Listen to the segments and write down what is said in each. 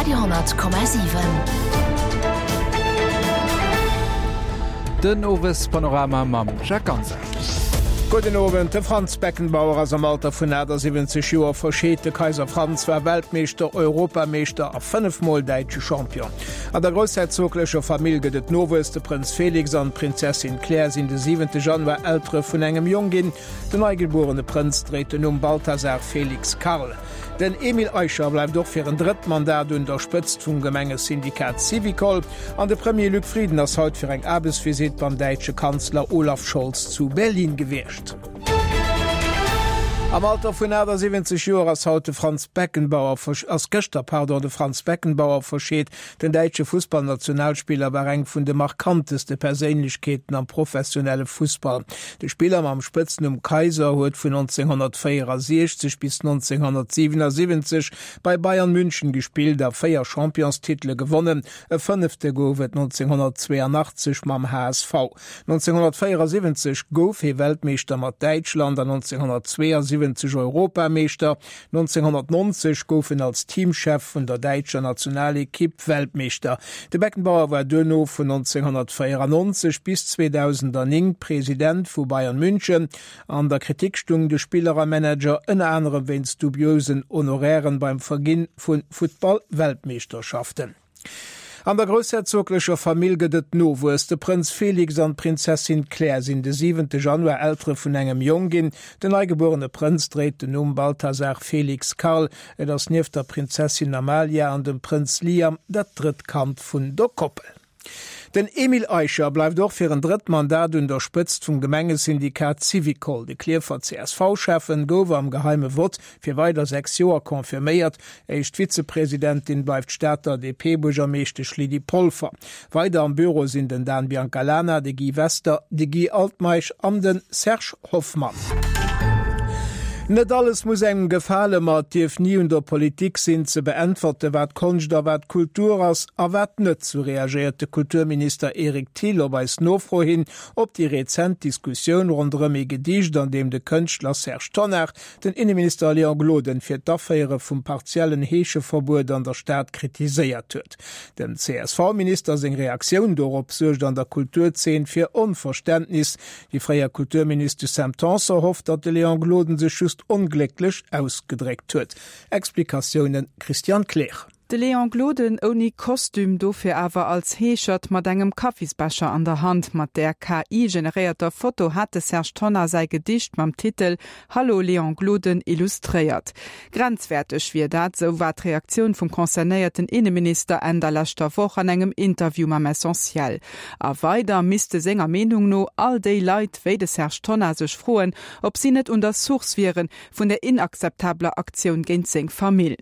Radio,7. Den Owespanorama mam Jacques Ganser. Gudden Owend. De Franz Beckenbauer ass am Alter vun 78 Joer verscheet. De Kaiser Franz war Weltmeeschter, Europameeschter a 5 Mol däitsche Champion. An der groussherzoglecher Famill gëtt et Nowuess, De Prënz Felix an d'Prinzessin Claire sinn de 7 Januar Eltere vun engem Jong ginn. Den neigebuerene Prënz dréit den Numm Balthasar Felix Karl. Den Emile Eicher bleift och fir en drëtt Mandat un der Spëtzt vum Gemengesyndikat Syvicol. An de Premier Luc Frieden ass haut fir eng Aarbechtsvisitt beim däitsche Kanzler Olaf Scholz zu Berlin gewiescht. Am Alter vun 78 Joer ass haut de Franz Beckenbauer ass gëschter pardon de Franz Beckenbauer verscheet. Den däitsche Fussballnationalspiller war eng vun de markanteste Perséinlechkeeten am professionelle Fussball. De Spiller mam Spëtznumm Kaiser huet vun 1964 bis 1977 bei Bayern München gespillt a 4 Championstitele gewonnen, e fënnefte gouf et 1982 mam HSV. 1974 gouf hie Weltmeeschter mat Däitschland an 1972 Europameeschter. 1990 gouf en als Teamchef vun der däitscher Nationalekipp Weltmeeschter. De Beckenbauer war duerno vun 1994 bis 2009 President vu Bayern München. An der Kritik stung de Spiller a Manager ënner anerem wéinst dubiosen Honorairen beim Verginn vu Futtball-Weltmeeschterschaften. An der groussherzoglecher Famill gëtt et Nowuess, De Prënz Felix an d'Prinzessin Claire sinn de siwente Januar Eltere vun engem Jong ginn. Den neigebuerene Prënz dréit den Numm Balthasar Felix Karl. Et ass nieft der Prinzessin Amalia an dem Prënz Liam dat drëtt Kand vun der Koppel. Den Emile Eicher bleift och fir en drëtt Mandat un der Spëtzt vum Gemengesyndikat Syvicol. De Klierfer CSV-Schäffen gouf am geheime Vott fir weider 6 Joer confirméiert. Éischt Vizepresidentin bleift d'Stater DP-Buergermeeschtesch Lydie Polfer. Weider am Büro sinn den Dan Biancalana, de Guy Wester, de Guy Altmeisch an de Serge Hoffmann. Net alles muss engem gefalen, ma et dierf ni un der Politik sinn ze beäntwerte wat Konscht a wat Kultur ass a wat net, sou reagéiert de Kulturminister Eric Thill op eis Nofro hin op déi rezent Diskussioun ronderëm ee Gedicht, an deem de Kënschtler Serge Tonnar den Inneminister Léon Gloden fir d'Aféiere vum partiellen Heescheverbuet an der Stad kritiséiert huet. Dem CSV-Minister seng Reaktioun dorop suergt an der Kulturzeen fir Onverständnis. Déi fréier Kulturministesch Sam Tanson hofft, datt de Léon Gloden sech just onglécklech ausgedréckt huet. Explikatioune Christiane Kleer. De Léon Gloden ouni Kostüm, dofir awer als Heeschert mat engem Kaffisbecher an der Hand. Mat där KI-generéierter Foto hat de Serge Tonnar säi Gedicht mam Titel Hallo Léon Gloden illustréiert. Grenzwäerteg wier dat, sou war d'Reaktioun vum concernéierten Inneminister Enn der leschter Woch an engem Interview mam Essentiel. A weider misste senger Meenung no all déi Leit wéi de Serge Tonnar sech froen, ob si net un der Source wiere vun der inakzeptabeler Aktioun géint seng Famill.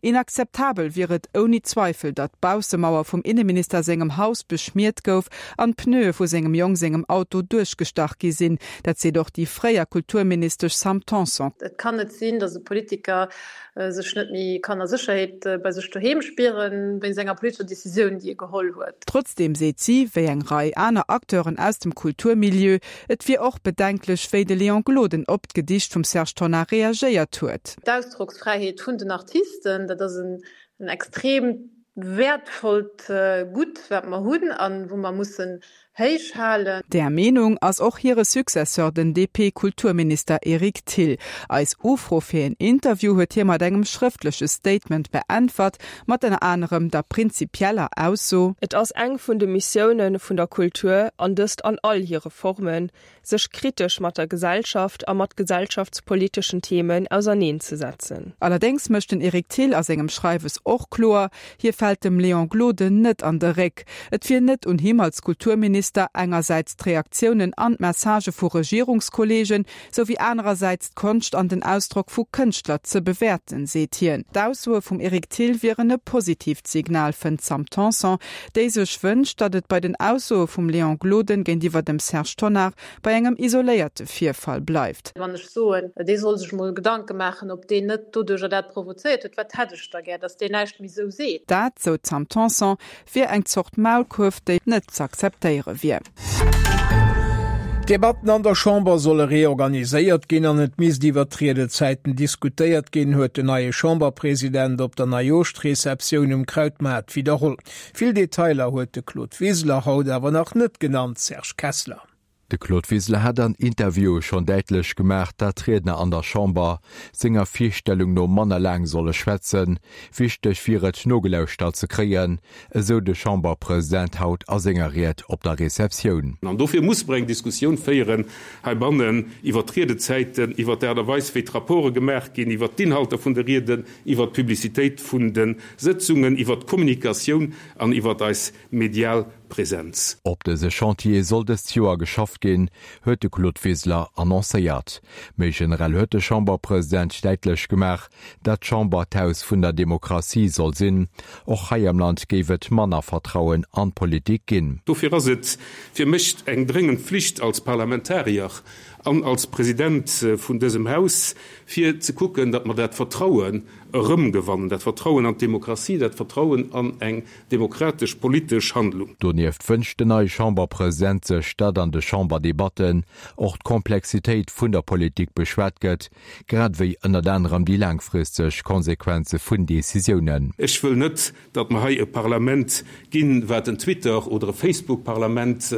Inakzeptabel wier et ouni Zweifel, datt d'Baussemauer vum Inneminister sengem Haus beschmiert gouf an d'Pneue vu sengem Jong sengem Auto duerchgestach gi sinn. Dat seet och déi fréier Kulturministesch Sam Tanson. Et kann net sinn, datt e Politiker sech net méi kann a Sécherheet bei sech doheem spieren, wéinst enger politescher Decisioun, déi e geholl huet. Trotzdeem seet si, wéi eng Rei aner Acteuren aus dem Kulturmilieu, et wier och bedenklech, wéi de Léon Gloden op d'Gedicht vum Serge Tonnar reagéiert huet. D'Ausdrocksfräiheet vun den Artisten, dat ass en extreem wäertvollt Gutt, wat mer hunn a wou mer mussen héich halen. Där Meenung ass och hire Successeur, den DP-Kulturminister Eric Thill. Eis Ufro fir een Interview huet hie mat engem schrëftleche Statement beäntwert, mat ënner anerem der prinzipieller Ausso. Et ass eng vun de Missioune vun der Kultur, an dëst an all hire Formen, sech kritesch mat der Gesellschaft a mat gesellschaftspoliteschen Themen auserneenzesetzen. Allerdéngs mécht den Eric Thill a sengem Schreiwes och kloer, hie fält dem Léon Gloden net an de Réck. Et wier net un him als Kulturminister, engersäits d'Reaktiounen an d'Messagë vu Regierungskolleegen, sou wéi anerersäits d'Konscht an den Ausdrock vu Kënschtler ze bewäerten, seet hien. D'Aussoe vum Eric Thill wieren e positiivt Signal, fënnt d'Sam Tanson, déi sech wënscht, datt et bei den Aussoe vum Léon Gloden géintiwwer dem Serge Tonnar bei engem isoléierte Virfall bleift. Wann ech soen, dee soll sech mol Gedanke maachen, ob deen net doduercher dat provozéiert huet, wat hätt ech da gär, datt deen näischt méi esou seet. Dat, sou d'Sam Tanson, wier eng Zort Maulkuerf, déi net z'akzeptéiere wier. D'Debatten an der Chamber solle reorganiséiert ginn an et misst iwwert d'Riedezäiten diskutéiert ginn, huet den neie Chamberpresident op der Neijooschreceptioun um Krautmaart widderholl. Vill Detailer huet de Claude Wiseler haut awer nach net genannt. Serge Kessler. De Claude Wiseler hat an Interviewe schonn däitlech gemaach, dat d'Riedner an der Chamber senger Virstellung no manner laang solle schwätzen. Wichteg wier et, nogelauschtert ze kréien, esou de Chamberpresident haut a senger Ried op der Receptioun. An dofir muss mer eng Diskussioun féieren heibannen iwwert d'Riedezäiten, iwwert d'Aart a Weis, wéi d'Rapporte gemaach ginn, iwwert d'Inhalter vun de Rieden, iwwert d'Publicitéit vun de Sëtzungen, iwwert d'Kommunikatioun an iwwert eis medial Presenz. Op dëse Chantier soll dëst Joer geschafft ginn, huet de Claude Wiseler annoncéiert. Méi generell huet de Chamberpresident däitlech gemaach, dat d'Chamber d'Haus vun der Demokratie soll sinn. Och hei am Land géif et manner Vertrauen an d'Politik ginn. Dofir ass et fir mech eng dréngend Pflicht als Parlamentarier an als President vun dësem Haus, fir ze kucken, datt mer dat Vertrauen erëmgewannen, dat Vertrauen an d'Demokratie, dat Vertrauen an eng demokratesch politesch Handlung. Donieft wënscht den neie Chamberpresident sech, datt an de Chamberdebatten och d'Komplexitéit vun der Politik beschwat gëtt, grad ewéi ënnert anerem déi laangfristeg Konsequenze vun Decisiounen. Ech wëll net, datt mer hei e Parlament ginn, wat en Twitter oder e Facebook-Parlament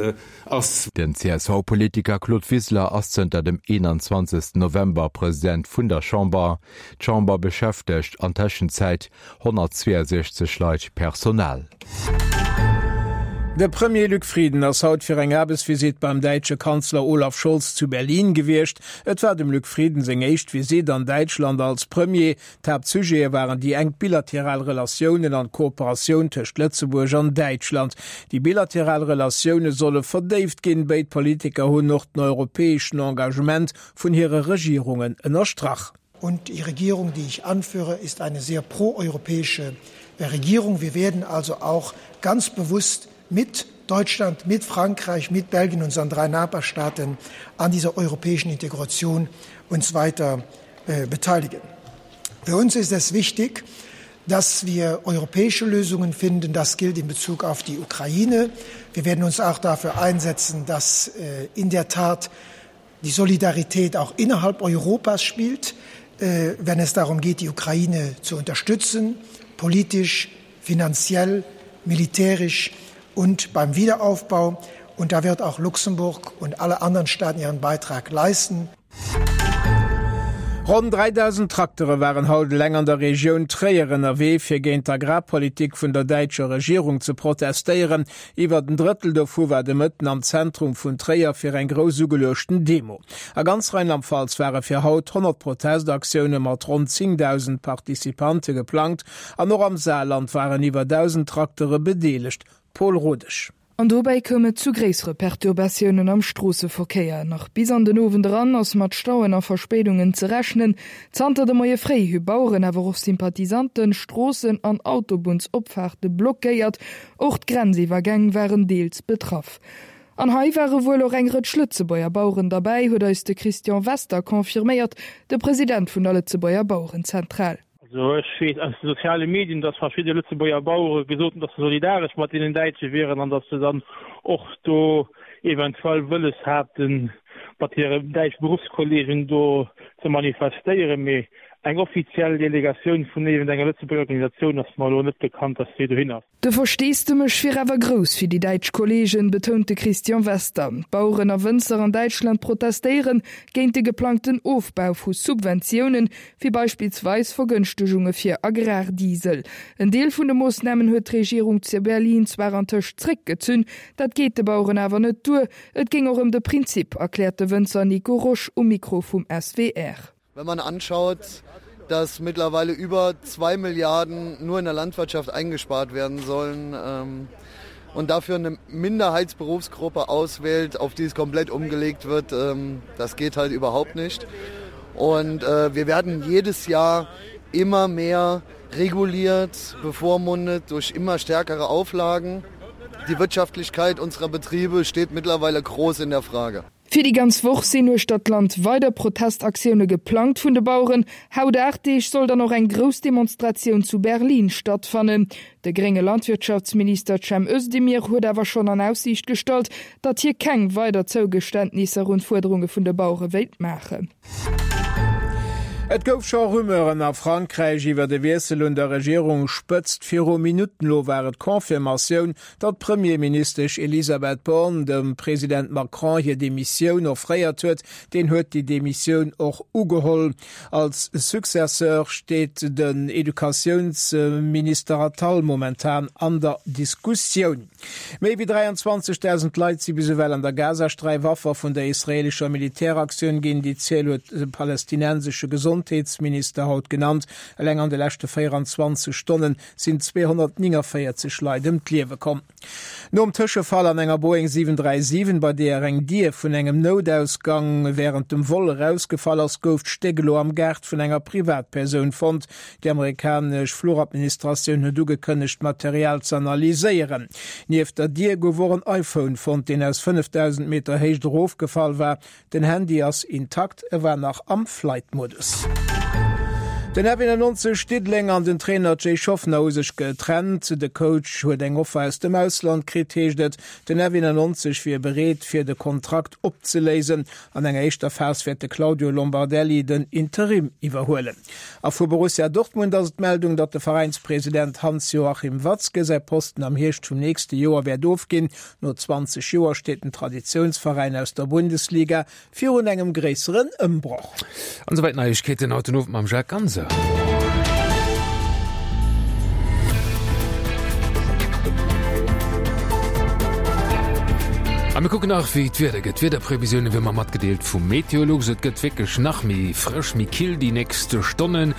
ass. Den CSV-Politiker Claude Wiseler ass zënter dem 21 November President vun der Chamber. D'Chamber beschäftegt an Tëschenzäit 162 Leit Personal. De Premier Luc Frieden ass haut fir eng Aarbechtsvisitt beim däitsche Kanzler Olaf Scholz zu Berlin gewiescht. Et war dem Luc Frieden seng éischt Visitt an Däitschland als Premier. D'Haaptsujete waren déi enk bilateral Relatiounen an d'Kooperatioun tëscht Lëtzebuerg an Däitschland. Déi bilateral Relatioune solle verdéift ginn. Béid Politiker hunn och den europäeschen Engagement vun hire Regierungen ënnerstrach. Und die Regierung, die ich anführe, ist eine sehr proeuropäische Regierung. Wir werden also auch ganz bewusst mit Deutschland, mit Frankreich, mit Belgien unseren drei Nachbarstaaten an dieser europäischen Integration uns weiter äh, beteiligen. Für uns ist es wichtig, dass wir europäische Lösungen finden. Das gilt in Bezug auf die Ukraine. Wir werden uns auch dafür einsetzen, dass äh, in der Tat die Solidarität auch innerhalb Europas spielt, äh, wenn es darum geht, die Ukraine zu unterstützen, politisch, finanziell, militärisch und beim Wiederaufbau. Und da wird auch Luxemburg und alle anderen Staaten ihren Beitrag leisten. Ronn 3.000 Traktere waren haut eleng an der Regioun Tréier ënnerwee, fir géint d'Agrarpolitik vun der däitscher Regierung ze protestéieren. Iwwert en Drëttel dovu war de Mëtten am Zentrum vun Tréier fir eng grouss ugeluechten Demo. A ganz Rheinland-Pfalz ware fir haut 100 Protestaktioune mat ronn 10.000 Participante geplangt an och am Saarland waren iwwer 1.000 Traktere bedeelegt. Paul Rodesch. An dobäi koum et zu gréissere Perturbatiounen am Stroosseverkéier. Nach bis an den Owend eran ass mat Stauen a Verspéidungen ze rechnen. Zanter de Moie fréi hu Baueren, awer och Sympathisanten, Stroossen an Autobunnsopfaarte blockéiert. Och d'Grenziwwergäng waren deels betraff. An hei ware wuel och eng Rëtsch Lëtzebuerger Baueren derbäi, huet eis de Christian Wester confirméiert, de President vun der Lëtzebuerger Bauerenzentral. Also ech weess aus de soziale Medien, datt verschidde Lëtzebuerger Bauere gesot hunn, datt se solidaresch mat deenen Däitsche wieren an datt se dann och do eventuell wëlles haten, mat hire däitsche Beruffskollegen do ze manifestéieren. Mee eng offiziell Delegatioun vun iergendenger Lëtzebuerger Organisatioun ass mer elo net bekannt, datt déi dohin ass. De Versteesdemech wier awer grouss fir déi däitsch Kolleegen, betount de Christian Wester. D'Baueren a Wënzer an Däitschland protestéiere géint de geplangten Ofbau vu Subventiounen, wéi beispillsweis Vergënschtegunge fir Agrardiesel. En Deel vun de Moossnamen huet d'Regierung zu Berlin zwar antëscht zréckgezunn, dat geet de Baueren awer net duer. Et géing och ëm de Prinzip, erkläert de Wënzer Nico Rosch um Mikro vum SWR. Wenn man anschaut, dass mittlerweile über zwei Milliarden nur in der Landwirtschaft eingespart werden sollen ähm, und dafür eine Minderheitsberufsgruppe auswählt, auf die es komplett umgelegt wird, ähm, das geht halt überhaupt nicht. Und äh, wir werden jedes Jahr immer mehr reguliert, bevormundet durch immer stärkere Auflagen. Die Wirtschaftlichkeit unserer Betriebe steht mittlerweile groß in der Frage. Fir déi ganz Woch sinn uechter d'Land weider Protestaktioune geplangt vun de Baueren. Haut 8 Deeg soll dann och eng grouss Demonstratioun zu Berlin stattfannen. De grénge Landwirtschaftsminister Cem Özdemir huet awer schonn an Aussiicht gestallt, datt hie keng weider Zougeständnisser un d'Fuerderunge vun de Bauere wéilt maachen. Et gouf scho Rumeuren a Frankräich iwwer e Wiessel un der Regierungsspëtzt. Viru Minutten elo war et d'Confirmatioun, datt d'Premierministesch Elisabeth Borne dem President Macron hir Demissioun offréiert huet. Deen huet déi Demissioun och ugeholl. Als Successeur steet den Educatiounsminister Attal momentan an der Diskussioun. Méi wéi 23.000 Leit si bis ewell an der Gazasträif Affer vun der israeelescher Militäraktioun ginn. Déi Ziel huet de palästinensesche Gesondheetsminister haut genannt. Eleng an de leschte 24 Stonne sinn 249 Leit ëm d'Liewe komm. Nom Tëschefall an enger Boeing 737, bei deeër eng Dier vun engem Noutausgang wärend dem Vol erausgefall ass, gouf d'Stéck elo am Gaart vun enger Privatpersoun fonnt. Déi amerikanesch Fluchadministratioun huet ugekënnegt, d'Material ze analyséieren. Nieft der Dier gouf och en iPhone fonnt, deen aus 5.000 Meter Héicht erofgefall war. Den Handy ass intakt, e war nach am Flight-Modus. Den F91 Diddeleng an den Trainer Jay Shoffner hu sech getrennt. De Coach huet eng Offer aus dem Ausland kritt, heescht et. Den F91 wier bereet, fir de Kontrakt opzeléisen. An enger éischter Phas wäert de Claudio Lombardelli den Interim iwwerhuelen. A vu Borussia Dortmund ass et d'Meldung, datt de Veräinspresident Hans-Joachim Watzke säi Posten am Hierscht vum nächste Joer wäert ofginn. No 20 Joer steet den Traditiounsveräin aus der Bundesliga virun engem gréisseren Ëmbroch. An esouwäit d'Neiegkeeten haut den Owend mam Jacques Ganser. A mir kucken nach, wéi d'Wieder gëtt. D'Wiederprevisioune wéi mer matgedeelt vu Meteolux. Et gëtt wierklech nach méi frësch, méi kill déi nächst Stonnen.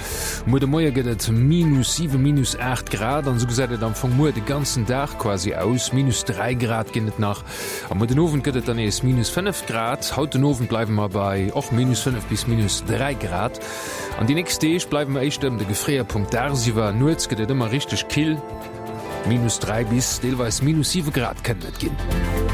Muer de Moie gëtt et minus 7, minus 8 Grad an esou gesäit et am Fong muer de ganzen Dag quasi aus. Minus 3 Grad ginn et nach a muer den Owend gëtt et dann nees minus 5 Grad. Haut den Owend bleiwe mer bei och minus 5 bis minus 3 Grad an déi nächst Deeg bleiwe mer éischter ëm de Gefréierpunkt dagsiwwer. Nuets gëtt et ëmmer richteg kill. Minus 3 bis deelweis minus 7 Grad kënnen et ginn.